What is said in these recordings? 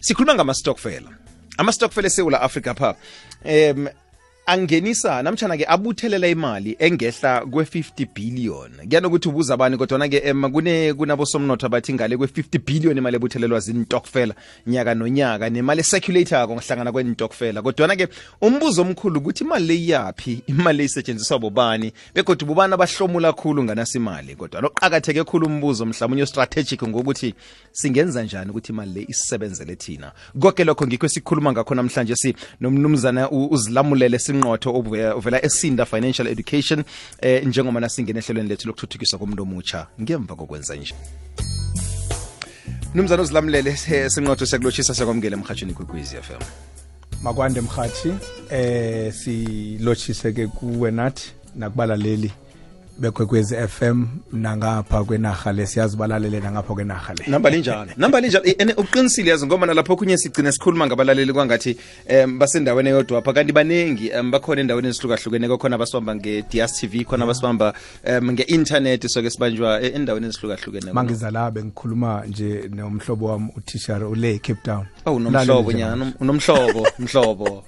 sikhuluma ngama-stockfela ama-stockfela eSouth Africa pha angenisa namtjana ke abuthelela imali engehla kwe-50 billion kuyanokuthi ubuza abani kodwa ke kunabosomnotho abathi ngale kwe-50 billion imali ebuthelelwa zintokfela nyaka nonyaka nemali ecirculator ngohlangana kwentokfela kodwa ke umbuzo omkhulu ukuthi imali le yapi imali esetshenziswa bobani begodwa bobani abahlomula kakhulu nganasi imali kodwa loqhakatheke kakhulu umbuzo mhlawumnye strategic ngokuthi singenza njani ukuthi imali le isebenzele thina konke lokho ngikho sikhuluma ngakho namhlanje nomnumzana uzilamulele sinqotho ovela eSinda Financial Education njengoba nasingena ehlelweni lethu lokuthuthukiswa komuntu omutsha ngemva kokwenza nje. Mnumzana uzilamulele sinqotho siyakulochisa siyakwamukela emhathweni kweKwizi FM. Makwande mhathi silochise ke kuwe nathi nakubalaleli beKwekwezi FM nangapha kwenaga lesiyazi balalele nangapha kwenaga le. Namba linjalo uqinisile yazi ngoba nalapho kunye sigcina sikhuluma ngabalaleli kwangathi basendaweni eyodwa apha kanti banengi bakhona endaweni ezihlukahlukene khona abasibamba nge-DStv khona abasibamba nge-internet soke sibanjwa endaweni ezihlukahlukene. Mangizala bengikhuluma nje nomhlobo wami uTishar ule Cape Town. Unomhlobo nyana mhlobo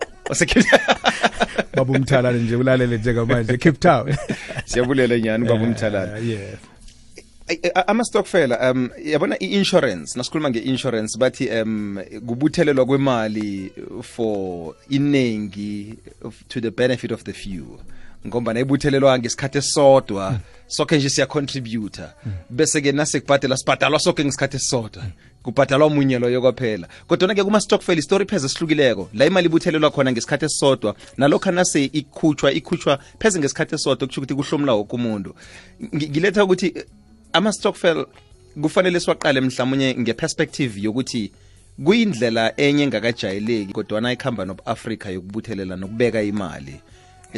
Baba Umthalane nje ulalele njengamanje Cape Town. Siyabulela nyani Baba Umthalane. Yes. Ama-stockfela yabona i-insurance nasikhuluma nge-insurance bathi kubuthelelwa kwemali for inengi to the benefit of the few ngomba nayibuthelelwa ngesikhathi esodwa soke nje siyacontributor bese ke nasekubhadela sibhadalwa soke ngesikhathi esodwa kubhadalwa umunye loyo kwaphela kodwa ke kuma stockfel story pheze sihlukileko la imali ibuthelelwa khona ngesikhathi esodwa nalokho nase ikhutshwa pheze ngesikhathi esodwa kusho ukuthi kuhlomula wonke umuntu ngiletha ukuthi ama stockfel kufanele siwaqale mhlawumnye ngeperspective yokuthi kuyindlela enye engakajayeleki kodwa na ikhamba noAfrica yokubuthelela nokubeka imali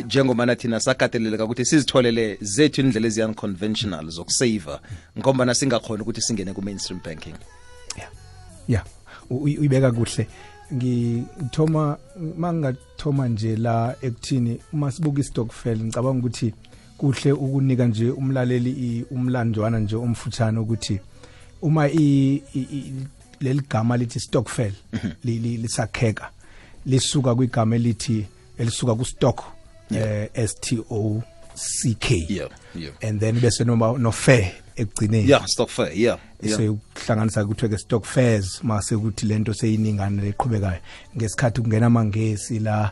njengoba nathi nasakateleleka ukuthi sizitholele zethu indlela eziunconventional zokusave ngoba nasingakhona ukuthi singene ku mainstream banking. Yeah uyibeka kuhle ngithoma mangathoma nje la ekuthini uma sibuka istockfel ngicabanga ukuthi kuhle ukunika nje umlaleli umlandwana nje omfutshane ukuthi uma leligama lithi stockfel lisakheka lisuka kwigama elithi elisuka ku stock STOCK and then bese no fair ekugcineni stock fair so ukuhlanganisa ukuthi ke stock fairs mase ukuthi lento seyiningana leqhubekayo ngesikhathi kungena amangesi la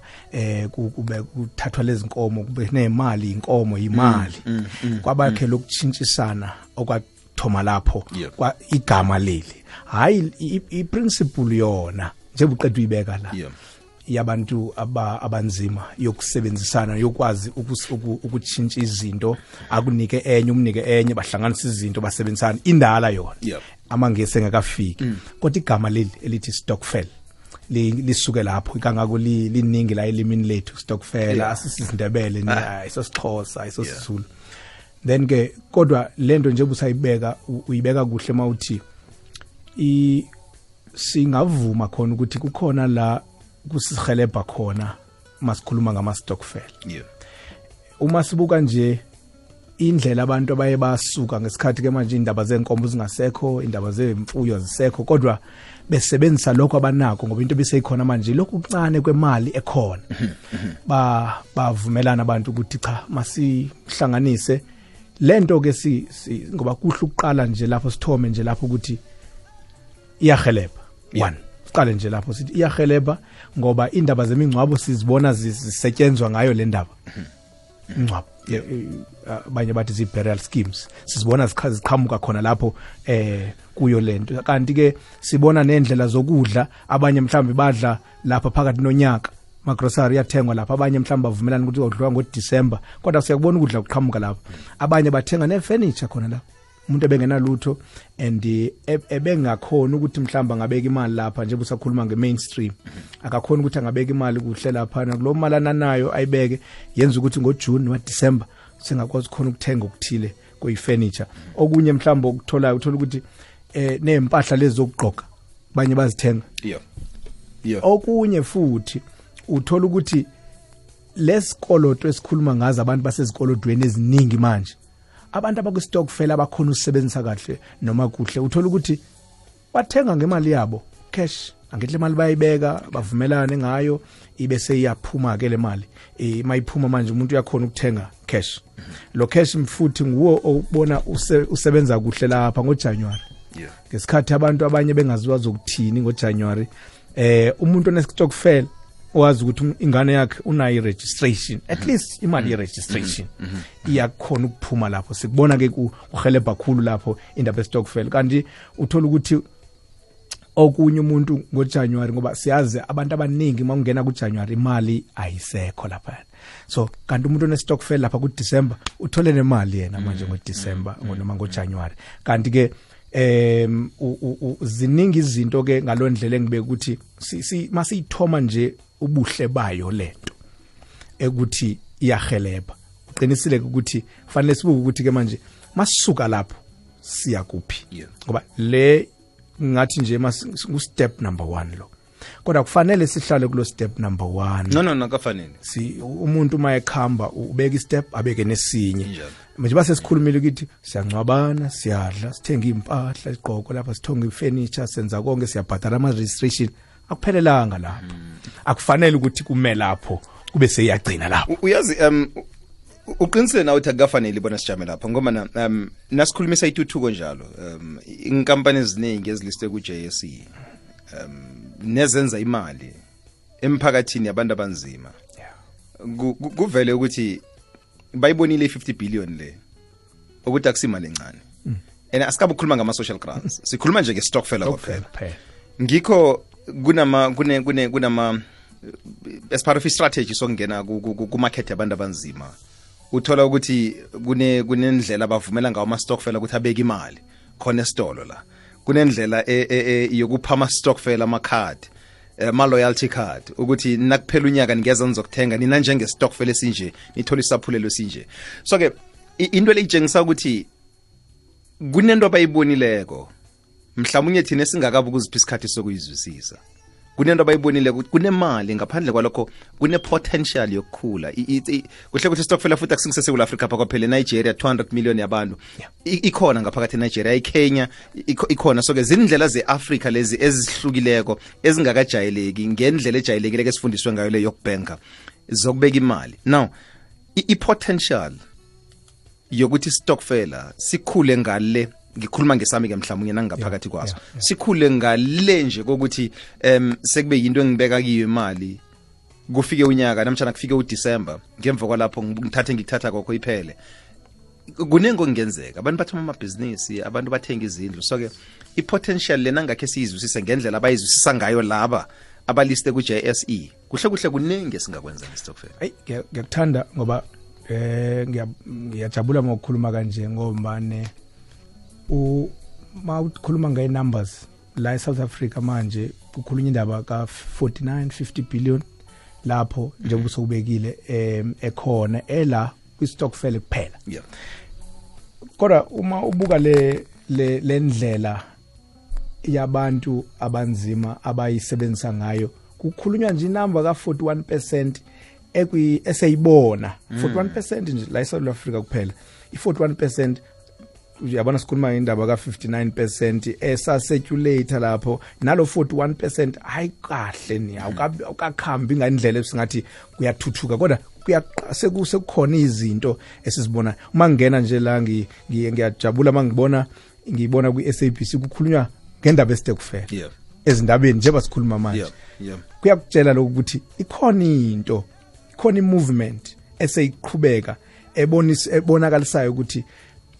kube kuthathwa lezi nkomo kube nemali inkomo imali kwabakhe lokutshintshisana okwathoma lapho kwa igama leli hayi iprinciple yona njengobuqedwe ibeka la yabantu abanzima yokusebenzisana yokwazi ukutshintsha izinto akunike enye umnike enye bahlanganisa izinto basebenzisana indala yona amangesi engakafiki kodwa igama leli elithi stockfel lisuke lapho ikangako liningi la elimini lethu stockfel asisindebele ayisosixhosa ayisosizulu then ke kodwa lento nje busayibeka uyibeka kuhle mawuthi singavuma khona ukuthi kukhona la kusihelebha khona masikhuluma ngama stockfel. Uma sibuka nje indlela abantu abaye basuka ngesikhathi ke manje indaba zenkombo zingasekho indaba zemfuyo zisekho kodwa besebenzisa lokho abanako ngoba into biseyikhona manje lokhu kuncane kwemali ekhona bavumelana abantu ukuthi cha masihlanganise lento ke ngoba kuhle ukuqala nje lapho sithome nje lapho ukuthi iyahelebha one qale nje lapho sithi iyahelebha ngoba indaba zemingcwabo sizibona zisetshenzwa ngayo le ndaba ingcwabo abanye bathi zi burial schemes sizibona ziqhamuka khona lapho kuyo lento kanti ke sibona nendlela zokudla abanye mhlambe badla lapha phakathi nonyaka magrocery yathengwa lapha abanye mhlambe bavumelana ukuthi udliwa ngoDecember kodwa siyakubona ukudla kuqhamuka lapha abanye bathenga nefurniture khona lapha umuntu ebengenalutho and ebengakhona ukuthi mhlamba ngabeka imali lapha nje busakhuluma ngemainstream akakhona ukuthi angabeka imali kuhle lapha nakulo malana nayo ayibeke yenza ukuthi ngoJune waDecember singakwazi khona ukuthenga ukuthile kuyifurniture okunye mhlamba ukuthola ukuthi nezempahla lezi zokugqoka banye bazithenga okunye futhi uthola ukuthi lesikoloto esikhuluma ngazo abantu basezikolodweni eziningi manje abantu abakustockfel abakhona usebenzisa kahle noma kuhle uthola ukuthi bathenga ngemali yabo cash angithi le mali bayibeka bavumelane ngayo ibe seyiyaphuma ke le mali mayiphuma manje umuntu uyakhona ukuthenga cash lo cash mfuthi nguwo obona usebenza kuhle lapha ngoJanuary ngesikhathi abantu abanye bengaziwa zokuthini ngoJanuary umuntu onesitokfel owazi ukuthi ingane yakhe unayo registration at least imali ye-registration iyakhona ukuphuma lapho sikubona ke kuhelebha kakhulu lapho indaba ye-stokvel kanti uthola ukuthi okunye umuntu ngoJanuary ngoba siyazi abantu abaningi mangena kuJanuary imali ayisekho lapha so kanti umuntu one-stokvel lapha kuDecember uthole nemali yena manje ngoDecember noma ngoJanuary kanti ke ziningi izinto ke ngalondlela engibeka ukuthi masiyithoma nje ubuhle bayo lento ekuthi iyahelebha uqinisile ukuthi kufanele sibuke ukuthi ke manje masisuka lapho siya kuphi ngoba le ngathi nje ku step number 1 lo kodwa kufanele sihlale kulo step number 1 no kafanele umuntu mayekhamba ubeka istep abeke nesinye manje base sikhulumile ukuthi siyangcwabana siyadla sithenga impahla isigqoko lapha sithonga ifurniture senza konke siyabhadala ama registration akuphelelanga lapho akufanele ukuthi kume lapho kube seyagcina lapho uyazi uqinisele nawe ukuthi akufanele ibona sijame lapha ngoba nasikhulumisa ituthuko njalo inkampani eziningi eziliste ku JSE nezenza imali emphakathini yabantu abanzima kuvele ukuthi bayibonile 50 billion le ukuthi akusimali encane and asikabe ukukhuluma ngama social grants sikhuluma nje nge-stokvel kwaphela ngikho kunama as part of a strategy sokungena ku market yabantu abanzima uthola ukuthi kunendlela abavumela ngawo ama-stokvel ukuthi abeke imali khona esitolo la kunendlela yokupha ama-stokvel ama-card ma-loyalty card ukuthi nakuphela unyaka ningeza nizokuthenga nina njenge-stokvel esinje nithola isaphulelo esinje so ke into le itshengisa ukuthi kunento abayibonileko mhlawumnye thina singakabi ukuzipha isikhathi sokuyizwisisa kunento abayibonile ukuthi kunemali ngaphandle kwalokho kune-potential yokukhula kuhle ukuthi istokfela futhi akusingisesewula Africa pha kwaphela eNigeria 200 million yabantu ikhona ngaphakathi eNigeria iKenya ikhona so ke zindlela ze-Africa lezi ezihlukileko ezingakajayeleki ngendlela ejayelekileke esifundiswe ngayo le yokubhenka zokubeka imali now i-potential yokuthi istokfela sikhule ngale ngikhuluma ngesami ke mhlawumnye nangaphakathi kwaso sikhule ngale nje kokuthi sekube yinto engibeka kiyo imali kufike unyaka namtjana kufike uDecember ngemva kwalapho ngithatha kokho iphele kunengo kungenzeka abantu bathoma amabhizinisi abantu bathenga izindlu so ke i-potential lena ngakhe siyizwisise ngendlela abayizwisisa ngayo laba abaliste ku JSE kuhle kunenge singakwenza ngestockfel ngiyakuthanda ngoba ngiyajabula ngokukhuluma kanje ngomane ukhuluma ngaye numbers la eSouth Africa manje kukhulunywa indaba ka 49-50 billion lapho njengoba sokubekile ekhona ela kwi-stokfel kuphela kodwa uma ubuka le ndlela yabantu abanzima abayisebenzisa ngayo kukhulunywa nje inamba ka 41% eseyibona 41% nje la eSouth Africa kuphela i41% uyabona sikhuluma indaba ka 59% esacirculate lapho nalo 41% hayi kahle ni awukakhambi ngandlela esingathi kuyathuthuka kodwa sekukhona izinto esizibona uma ngena nje la ngiyajabula mangibona ku-SABC kukhulunywa ngendaba esitokfela ezindabeni njengoba sikhuluma manje kuyakutshela lokho ukuthi ikhona movement eseyiqhubeka ebonakalisayo ukuthi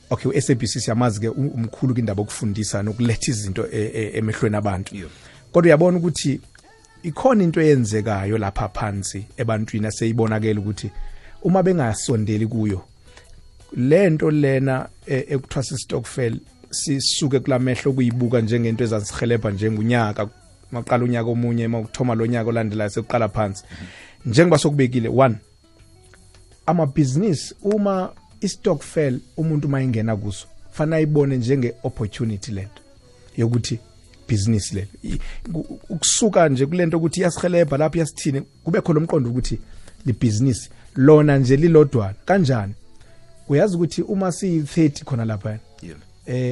okay uSABC siyamazi ke umkhulu kindaba okufundisa nokuletha izinto emehlweni abantu kodwa uyabona ukuthi ikhona into eyenzekayo lapha phansi ebantwini aseyibonakela ukuthi uma bengasondeli kuyo lento lena ekuthiwa stokfel sisuke kulamehlo kuyibuka njengento ezasihelebha njengunyaka maqala unyaka omunye makuthoma lo nyaka olandelayo sekuqala phansi njengoba sokubekile 1 amabhizinisi uma istokfel umuntu mayengena kuso fana ayibone njenge opportunity lento yokuthi business le ukusuka nje kulento ukuthi yasihelebha lapha yasithini kube khona umqondo ukuthi li business lona nje lilodwana kanjani uyazi ukuthi uma si30 khona lapha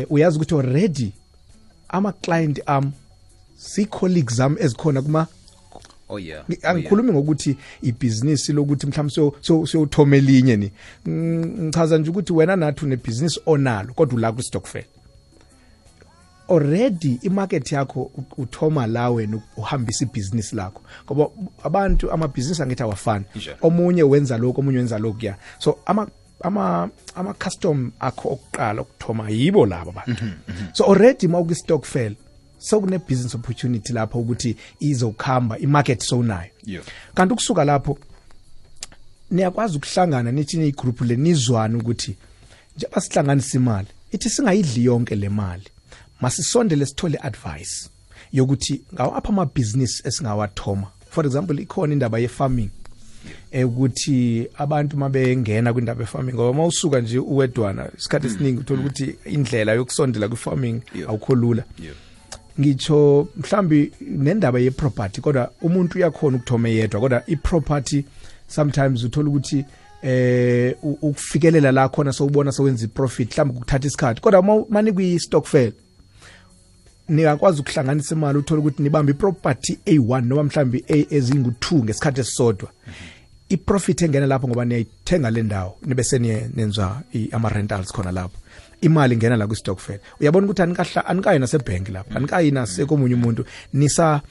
uyazi ukuthi already ama client si colleagues zami ezikhona kuma oh yeah angikhulumi ngokuthi ibhizinisi lokuthi mhlawumbe sothoma elinye ni ngichaza nje ukuthi wena nathi unebusiness onalo kodwa ula ku stokvel already imarket yakho uthoma la wena uhambisa ibusiness lakho ngoba abantu amabhizinisi angithi awafani omunye wenza lokho omunye wenza lokho ya so ama custom akho okuqala ukuthoma yibo laba abantu so already mawuku stokvel so kune business opportunity lapho ukuthi izokhamba imarket sonayo kanti ukusuka lapho niyakwazi ukuhlangana nithi igroup lenizwana ukuthi nje basihlanganisa imali ithi singayidli yonke le mali masisondele sithole advice yokuthi ngawo apha ama business esingawathoma for example ikhona indaba ye farming ukuthi abantu mabengena kwindaba ye farming ngoba mawusuka nje uwedwana isikhathi esiningi uthola ukuthi indlela yokusondela ku farming awukho lula ngitsho mhlambi nendaba ye property kodwa umuntu uyakhona ukuthoma yedwa kodwa I property sometimes uthola ukuthi ukufikelela la khona sowubona sowenza profit mhlambi ukuthatha isikhathi kodwa mani kwi stokvel niyakwazi ukuhlanganisa imali uthola ukuthi nibamba iproperty A1 noma mhlambi ezingu2 ngesikhathi esisodwa iprofit engena lapho ngoba niyayithenga le ndawo nibe senenza ama rentals khona lapho imali ingena la ku stokvel uyabona ukuthi anikayi nasebank lapha anikayi nasekomunye umuntu nisa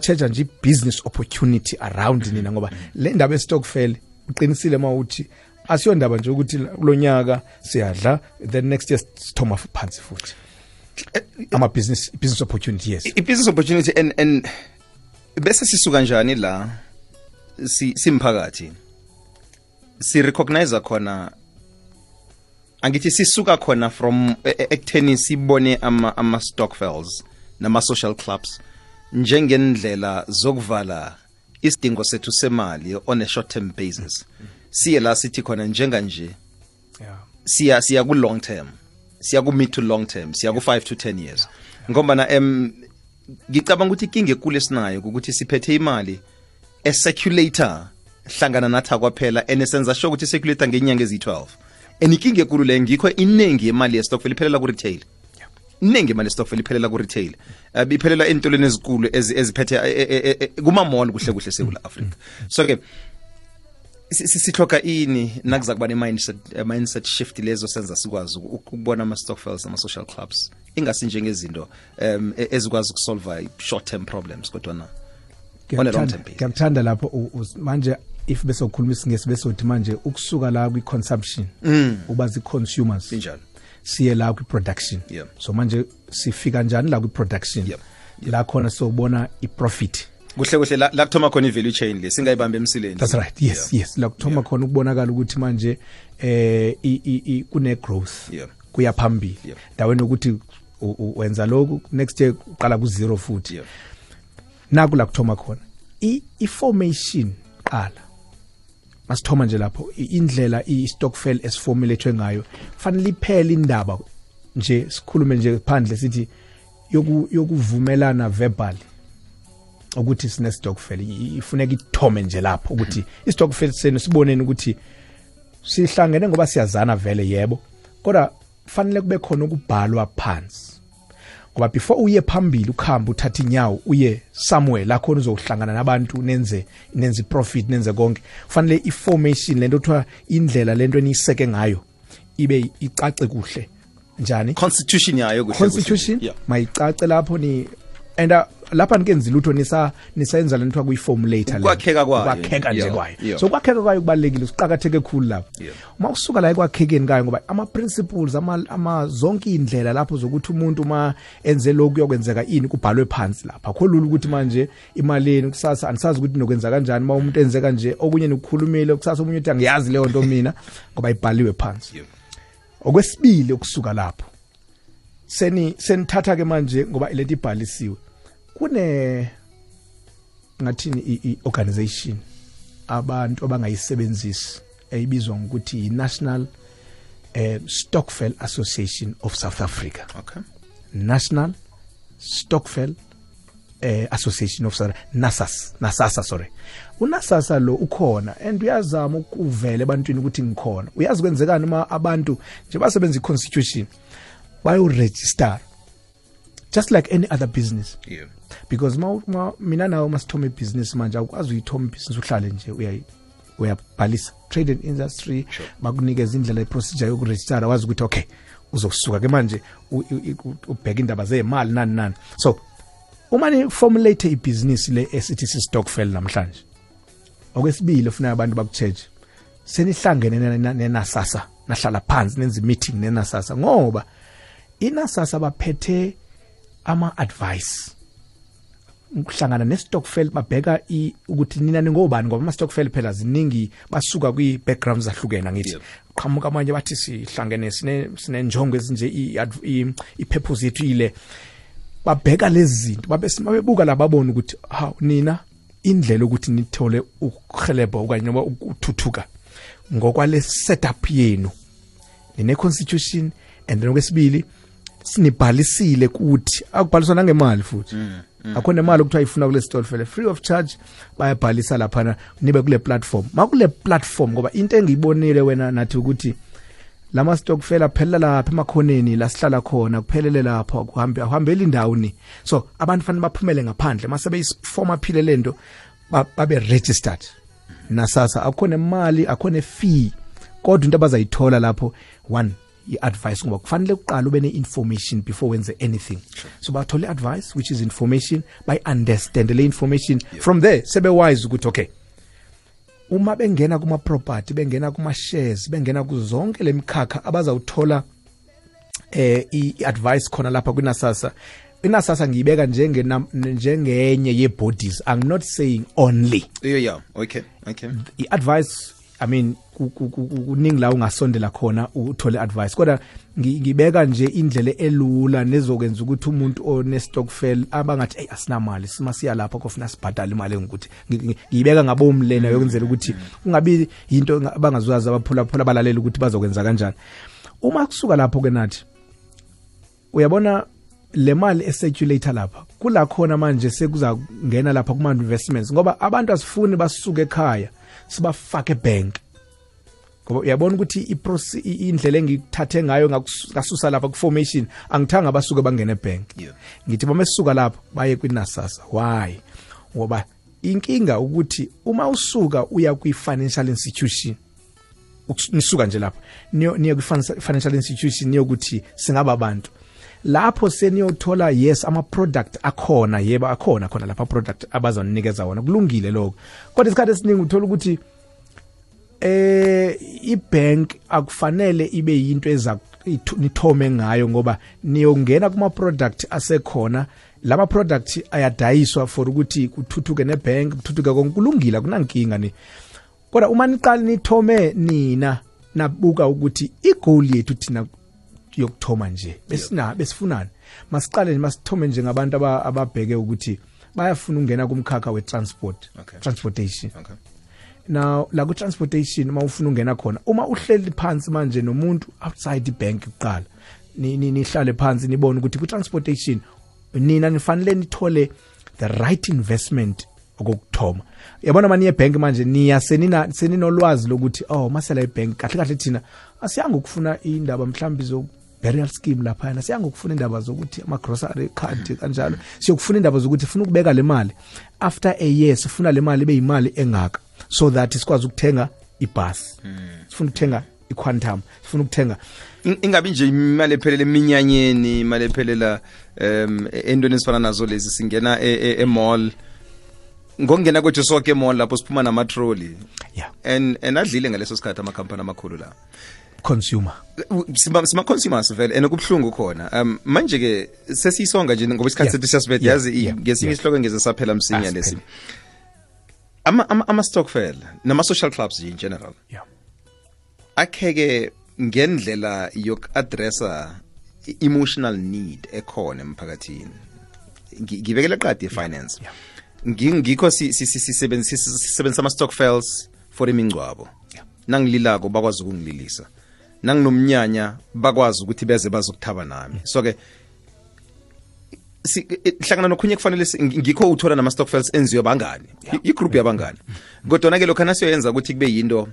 charge nje business opportunity around nina ngoba le ndaba estokvel uqinisile mawuthi asiyo ndaba nje ukuthi kulonyaka siyadla then next year sithoma phansi futhi ama business opportunity yes business opportunity and bese sisuka kanjani la simphakathi si recognize khona angithi sisuka khona from ekutheni sibone ama stokvels nama social clubs njengendlela zokuvala isidingo sethu semali on a short term basis siye la sithi khona njenga nje siya ku long term siya ku mid to long term siya ku 5 to 10 years ngoba na ngicabanga ukuthi inkinga ekule sinayo ukuthi siphethe imali circulator hlangana nathi kwaphela enesenza sho ukuthi circulator ngenyanga ezi12 enikinge ekulu le ngikho inengi yemali ye stokvel iphelela ku retail inengi imali ye stokvel iphelela ku retail iphelela entolweni ezikulu eziphethe kuma mall kuhle kuhle eSouth Africa so ke sithoka ini nakuza kuba ne mindset shift lezo senza sikwazi ukubona ama stokvels ama social clubs ingasi njengezinto ezikwazi ukusolve short term problems kodwa na on a long term basis ngiyamthanda lapho manje if bese ukhuluma isingesi bese uthi manje ukusuka la kwi consumption ubazi consumers injalo siye la kwi production so manje sifika njani la kwi production la khona sobona I profit kuhle kuhle la kuthoma khona I value chain le singayibamba emsileni that's right yes la kuthoma khona ukubonakala ukuthi manje kune growth kuya phambili daweni ukuthi wenza lokhu next year uqala ku zero futhi naku la kuthoma khona I-formation qala masithoma nje lapho indlela I-stokvel esiformulethwe ngayo fanele iphele indaba nje sikhulume nje phandle sithi yokuvumelana verbal ukuthi sine stokvel ifuneka ithome nje lapho ukuthi istokvel senu siboneni ukuthi sihlangene ngoba siyazana vele yebo kodwa fanele kube khona ukubhalwa phansi ngoba before uye phambili ukhamba uthatha inyawo uye somewhere la khona uzohlangana nabantu nenze profit nenze konke fanele information lento kuthiwa indlela lento eniseke ngayo ibe icace kuhle njani constitution yayo kuhle constitution mayicace lapho ni and lapha nikenza lutho nisayenza lento kuyiformulator le kwakheka nje kwayo so kwakheka kwayo kubalekile usiqhakatheke kakhulu lapho uma usuka la ekwakhekeni ngayo ngoba ama principles ama zonke indlela lapho zokuthi umuntu uma enze lokhu kuyokwenzeka ini kubhalwe phansi lapha akho lula ukuthi manje imaleni kusasa anisazi ukuthi nokwenza kanjani uma umuntu enze kanje okunye nokukhulumile kusasa umuntu uthi angiyazi leyo nto mina ngoba ibhaliwe phansi okwesibili ukusuka lapho senithatha ke manje ngoba ileti ibhalisiwe kune ngathini I-organization abantu abangayisebenzisi eyibizwa ngokuthi I-National Stokvel Association of South Africa National Stokvel Association of South NASASA sorry uNASASA lo ukhona and uyazama ukuvela ebantwini ukuthi ngikhona uyazi kwenzekani uma abantu nje basebenza I-constitution bayo register just like any other business. Yeah. Because mina nawe masithoma ibusiness manje awukwazi uyithoma ibusiness uhlale nje uyabhalisa trade and industry bakunikeza indlela iprocedure yokuregister wazi ukuthi okay uzokusuka ke manje ubheka indaba zemali nani. So uma ni formulate ibusiness le esithi Stokvel namhlanje okwesibili ufuna abantu bakucheche senihlangene neNASASA nahlala phansi nenza meeting neNASASA ngoba iNASASA baphethe ama advice ukuhlangana neStokvel babheka ukuthi nina ningobani ngoba ama Stokvel phela ziningi basuka kwi backgrounds zahlukene ngithi qhamuka abanye bathi sihlangene sinenjongo ezinje ipurpose yethu ile babheka lezi zinto babebuka lababona ukuthi nina indlela ukuthi nithole ukuhelebha okanye noma ukuthuthuka ngokwale setup yenu nine constitution and then okwesibili sinibhalisile ukuthi akubhaliswa nangemali futhi akhona imali ukuthi ayifuna kule Stokvel free of charge bayabhalisa lapha nibe kule platform makule platform ngoba into engiyibonile wena nathi ukuthi lama Stokvel aphelela lapha emakhoneni la sihlala khona kuphelele lapha kuhambela indawuni so abantu fanele baphumele ngaphandle mase beyiform aphile lento babe registered naSASA akhona imali akhona fee kodwa into abazayithola lapho one i-advice ngoba kufanele uqala ube ne-information before wenze anything so bathole advice which is information by understand le information from there sebe wise ukuthi okay uma bengena kuma property bengena kuma shares bengena kuzonke lemkhakha abazawuthola i-advice khona lapha kuNASASA iNASASA ngiyibeka njengenye ye bodies. I'm not saying only. Yeah. Okay. I-advice I mean kuningi la ungasondela khona uthole advice kodwa ngibeka nje indlela elula nezokwenza ukuthi umuntu oneStokvel abangathi asinamali simasiya lapha kofuna sibhadale imali ngokuthi ngibeka ngabomlena yokwenzela ukuthi kungabi into abangazwazi abaphula balalela ukuthi bazokwenza kanjani uma kusuka lapho ke nathi uyabona le mali eseculator lapha kula khona manje sekuzangena lapha kuma investments ngoba abantu asifuni basuke ekhaya sibafake bank ngoba uyabona ukuthi indlela engithathe ngayo ngasusa lapha ku formation angithanga basuke bangene bank ngithi bamesuka lapha baye kwiNASASA why ngoba inkinga ukuthi uma usuka uya kwi financial institution nisuka nje lapha niyo kwi financial institution niyokuthi singaba abantu lapho seniyothola yes ama product akhona yebo akhona lapha product abazonikeza wona kulungile lokho kodwa isikhathi esiningi uthola ukuthi ibank akufanele ibe yinto nithome ngayo ngoba niyongena kuma product asekhona lama product ayadayiswa for ukuthi kuthuthuke nebank kuthuthuke konkulungile kunankinga ni kodwa uma niqala nithome nina nabuka ukuthi igoal yethu thina yokuthoma nje besifunani masiqale masithome nje ngabantu ababheke ukuthi bayafuna ungena kumkhakha transportation now la ku transportation uma ufuna ungena khona uma uhleli phansi manje nomuntu outside ibank kuqala nihlale phansi nibone ukuthi ku transportation nina nifanele nithole the right investment okuthoma yabona manje ebank manje niya seninolwazi lokuthi masela ibank kahle thina asiyanga ukufuna indaba mhlawumbe zo burial scheme lapha siyanga ukufuna indaba zokuthi ama grocery card kanjalo siyokufuna indaba zokuthi ufuna ukubeka le mali after a year sifuna le mali beyimali engaka so that sikwazi ukuthenga ibus sifuna ukuthenga iquantum sifuna ukuthenga ingabi nje imali ephelele eminyanyeni imali ephelela endweni ezifana nazo lezi singena e-mall ngongena kwethu sonke e-mall lapho siphuma nama trolley and adlile ngaleso sikhathi ama company amakhulu la consumer sima consumers vele enokubhlungu khona manje ke sesisonga nje ngoba isikhathi sethu siyasibethe yazi ngesinye isihloko ngeze saphela msinya lesi ama Stokvel nama social clubs in general akheke ngendlela yokuaddressa emotional need ekhona emphakathini ngibekele qadi finance ngikho sisebenzisa ama Stokvels for imingcwabo nangililako bakwazi ukungililisa nanginomnyanya bakwazi ukuthi beze bazokuthaba nami so ke hlangana nokhunye kufanele ngikho uthola nama Stokvels enziwe bangani igroup yabangani kodwa ke lokho nasiyoyenza ukuthi kube yinto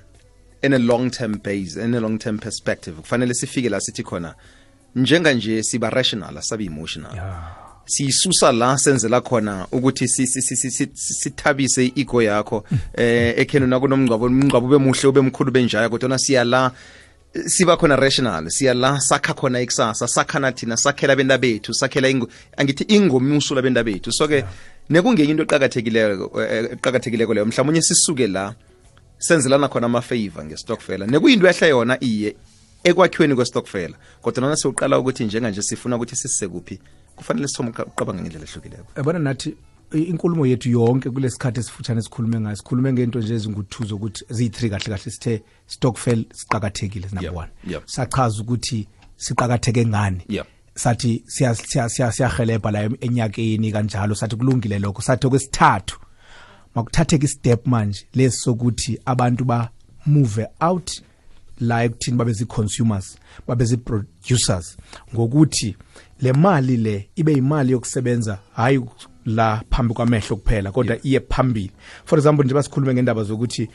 in a long term base in a long term perspective kufanele sifike la sithi khona njenga nje siba rational asabi emotional siyisusa la senzela khona ukuthi sithabise i-ego yakho ekhenu nakunomngcwabo ube muhle ube mkhulu benjaya kodwa siya la siba khona rational, siya la sakha khona ikusasa, sakhana thina, sakhela benda bethu, sakhela angithi ingomuso labenda bethu. So ke nekungenye into eqhakathekileko leyo mhlawumnye sisuke la senzelana khona ama favor ngestokfela nekuyinto ehle yona iye ekwakhiweni kwestokfela kodwa nana siuqala ukuthi njenganje sifuna ukuthi sisekuphi kufanele sithome uqabanga ngendlela ehlukileko. Yabona nathi inkulumo yethu yonke kulesikhathi esifutshane sikhulume ngayo, sikhulume ngento nje ezinguthuzo ukuthi ziyi3 kahle sithe stokfel siqhakathekile number 1. Sachaza ukuthi siqhakatheke ngani. Sathi siyahelebha la enyakeni kanjalo, sathi kulungile lokho. Sathi okwesithathu makuthatheke istep manje lesokuthi abantu ba move out la ekuthini babe zi-consumers, babe zi-producers, ngokuthi le mali le ibe imali yokusebenza hayi la phambi kwamehlo kuphela kodwa iye phambili. For example nje basikhulume ngendaba zokuthi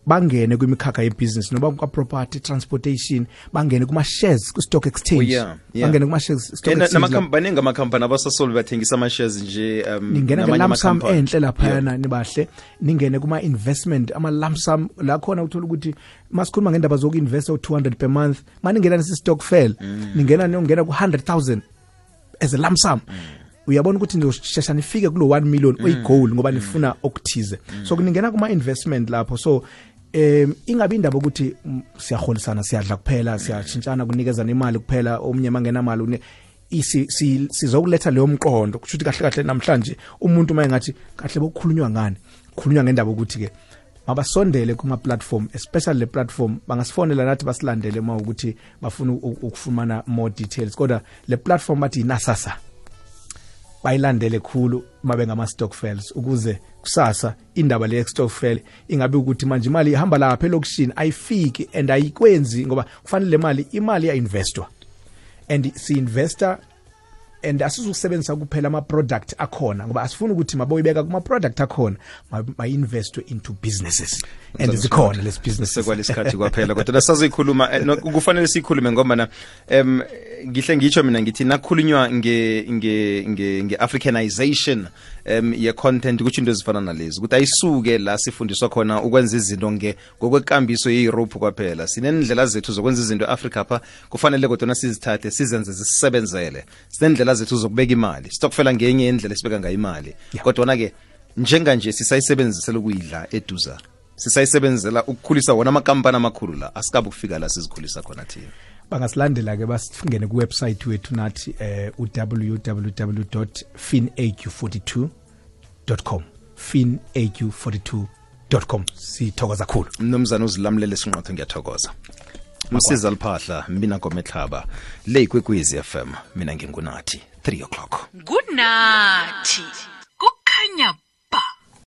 bangene kwimikhakha yebusiness noba kwa-property, transportation, bangene kuma-shares ku-stock exchange. Bangene kuma-shares stock exchange. Baningi amakhampani abasasole bathengisa ama-shares nje. Ningena nge-lump sum enhle laphayana nibahle, ningene kuma-investment, ama-lump sum la khona uthola ukuthi masikhuluma ngendaba zoku-investa u-200 per month, maningena nesi-stokfel, ningena ku-100,000 as a lump sum. Uyabona ukuthi ngizoshesha nifike kulo 1 million oyigoal ngoba nifuna okuthize. So kuningena kuma-investment lapho. So ingabe indaba ukuthi siyaholisana, siyadla kuphela, siyashintshana kunikezana imali kuphela, omnye mangena imali sizokuletha leyo mqondo kusho ukuthi kahle namhlanje umuntu mayengathi kahle bokukhulunywa ngani, kukhulunywa ngendaba ukuthi ke mabasondele kuma platform, especially le platform bangasifonela nathi basilandele uma ukuthi bafuna ukufumana more details, kodwa le platform bathi inasasa bayilandele khulu mabe ngama stokfels ukuze kusasa indaba le stokfel ingabe ukuthi manje imali ihamba lapha elokishini ayifiki and ayikwenzi ngoba kufanele imali ya investwa and si investor and asizokusebenzisa kuphela ama product akhona ngoba asifuna ukuthi maboyibeka kuma product akhona ma-investwe into businesses and zikhona lesi business sekwalesikhathi kwaphela kodwa sazoyikhuluma kufanele sikhulume ngoba na ngihle ngitsho mina ngithi nakhulunywa nge Africanization ye content ukuthi into ezifana nalezi ukuthi ayisuke la sifundiswa khona ukwenza izinto ngokwekambiso ye-Europe kwaphela. Sinendlela zethu zokwenza izinto eAfrica apha, kufanele kodwa sizithathe sizenze zisebenzele. Sinendlela zethu zokubeka imali, stokfela ngenye indlela esibeka ngayo imali, kodwa ke njenganje sisayisebenzisela ukuyidla eduza, sisayisebenzela ukukhulisa wona amakampani amakhulu la, asikabe ukufika la sizikhulisa khona thina. Bangasilandela ke basifungene ku website wethu nathi www.finaq42.com finaq42.com. Sithokoza kakhulu mnumzana uzilamlele sinqotho, ngiyathokoza. Msiza Liphahla, mina Ngometlhaba, le Ikwekwezi FM, mina ngingunathi 3 o'clock. Good night.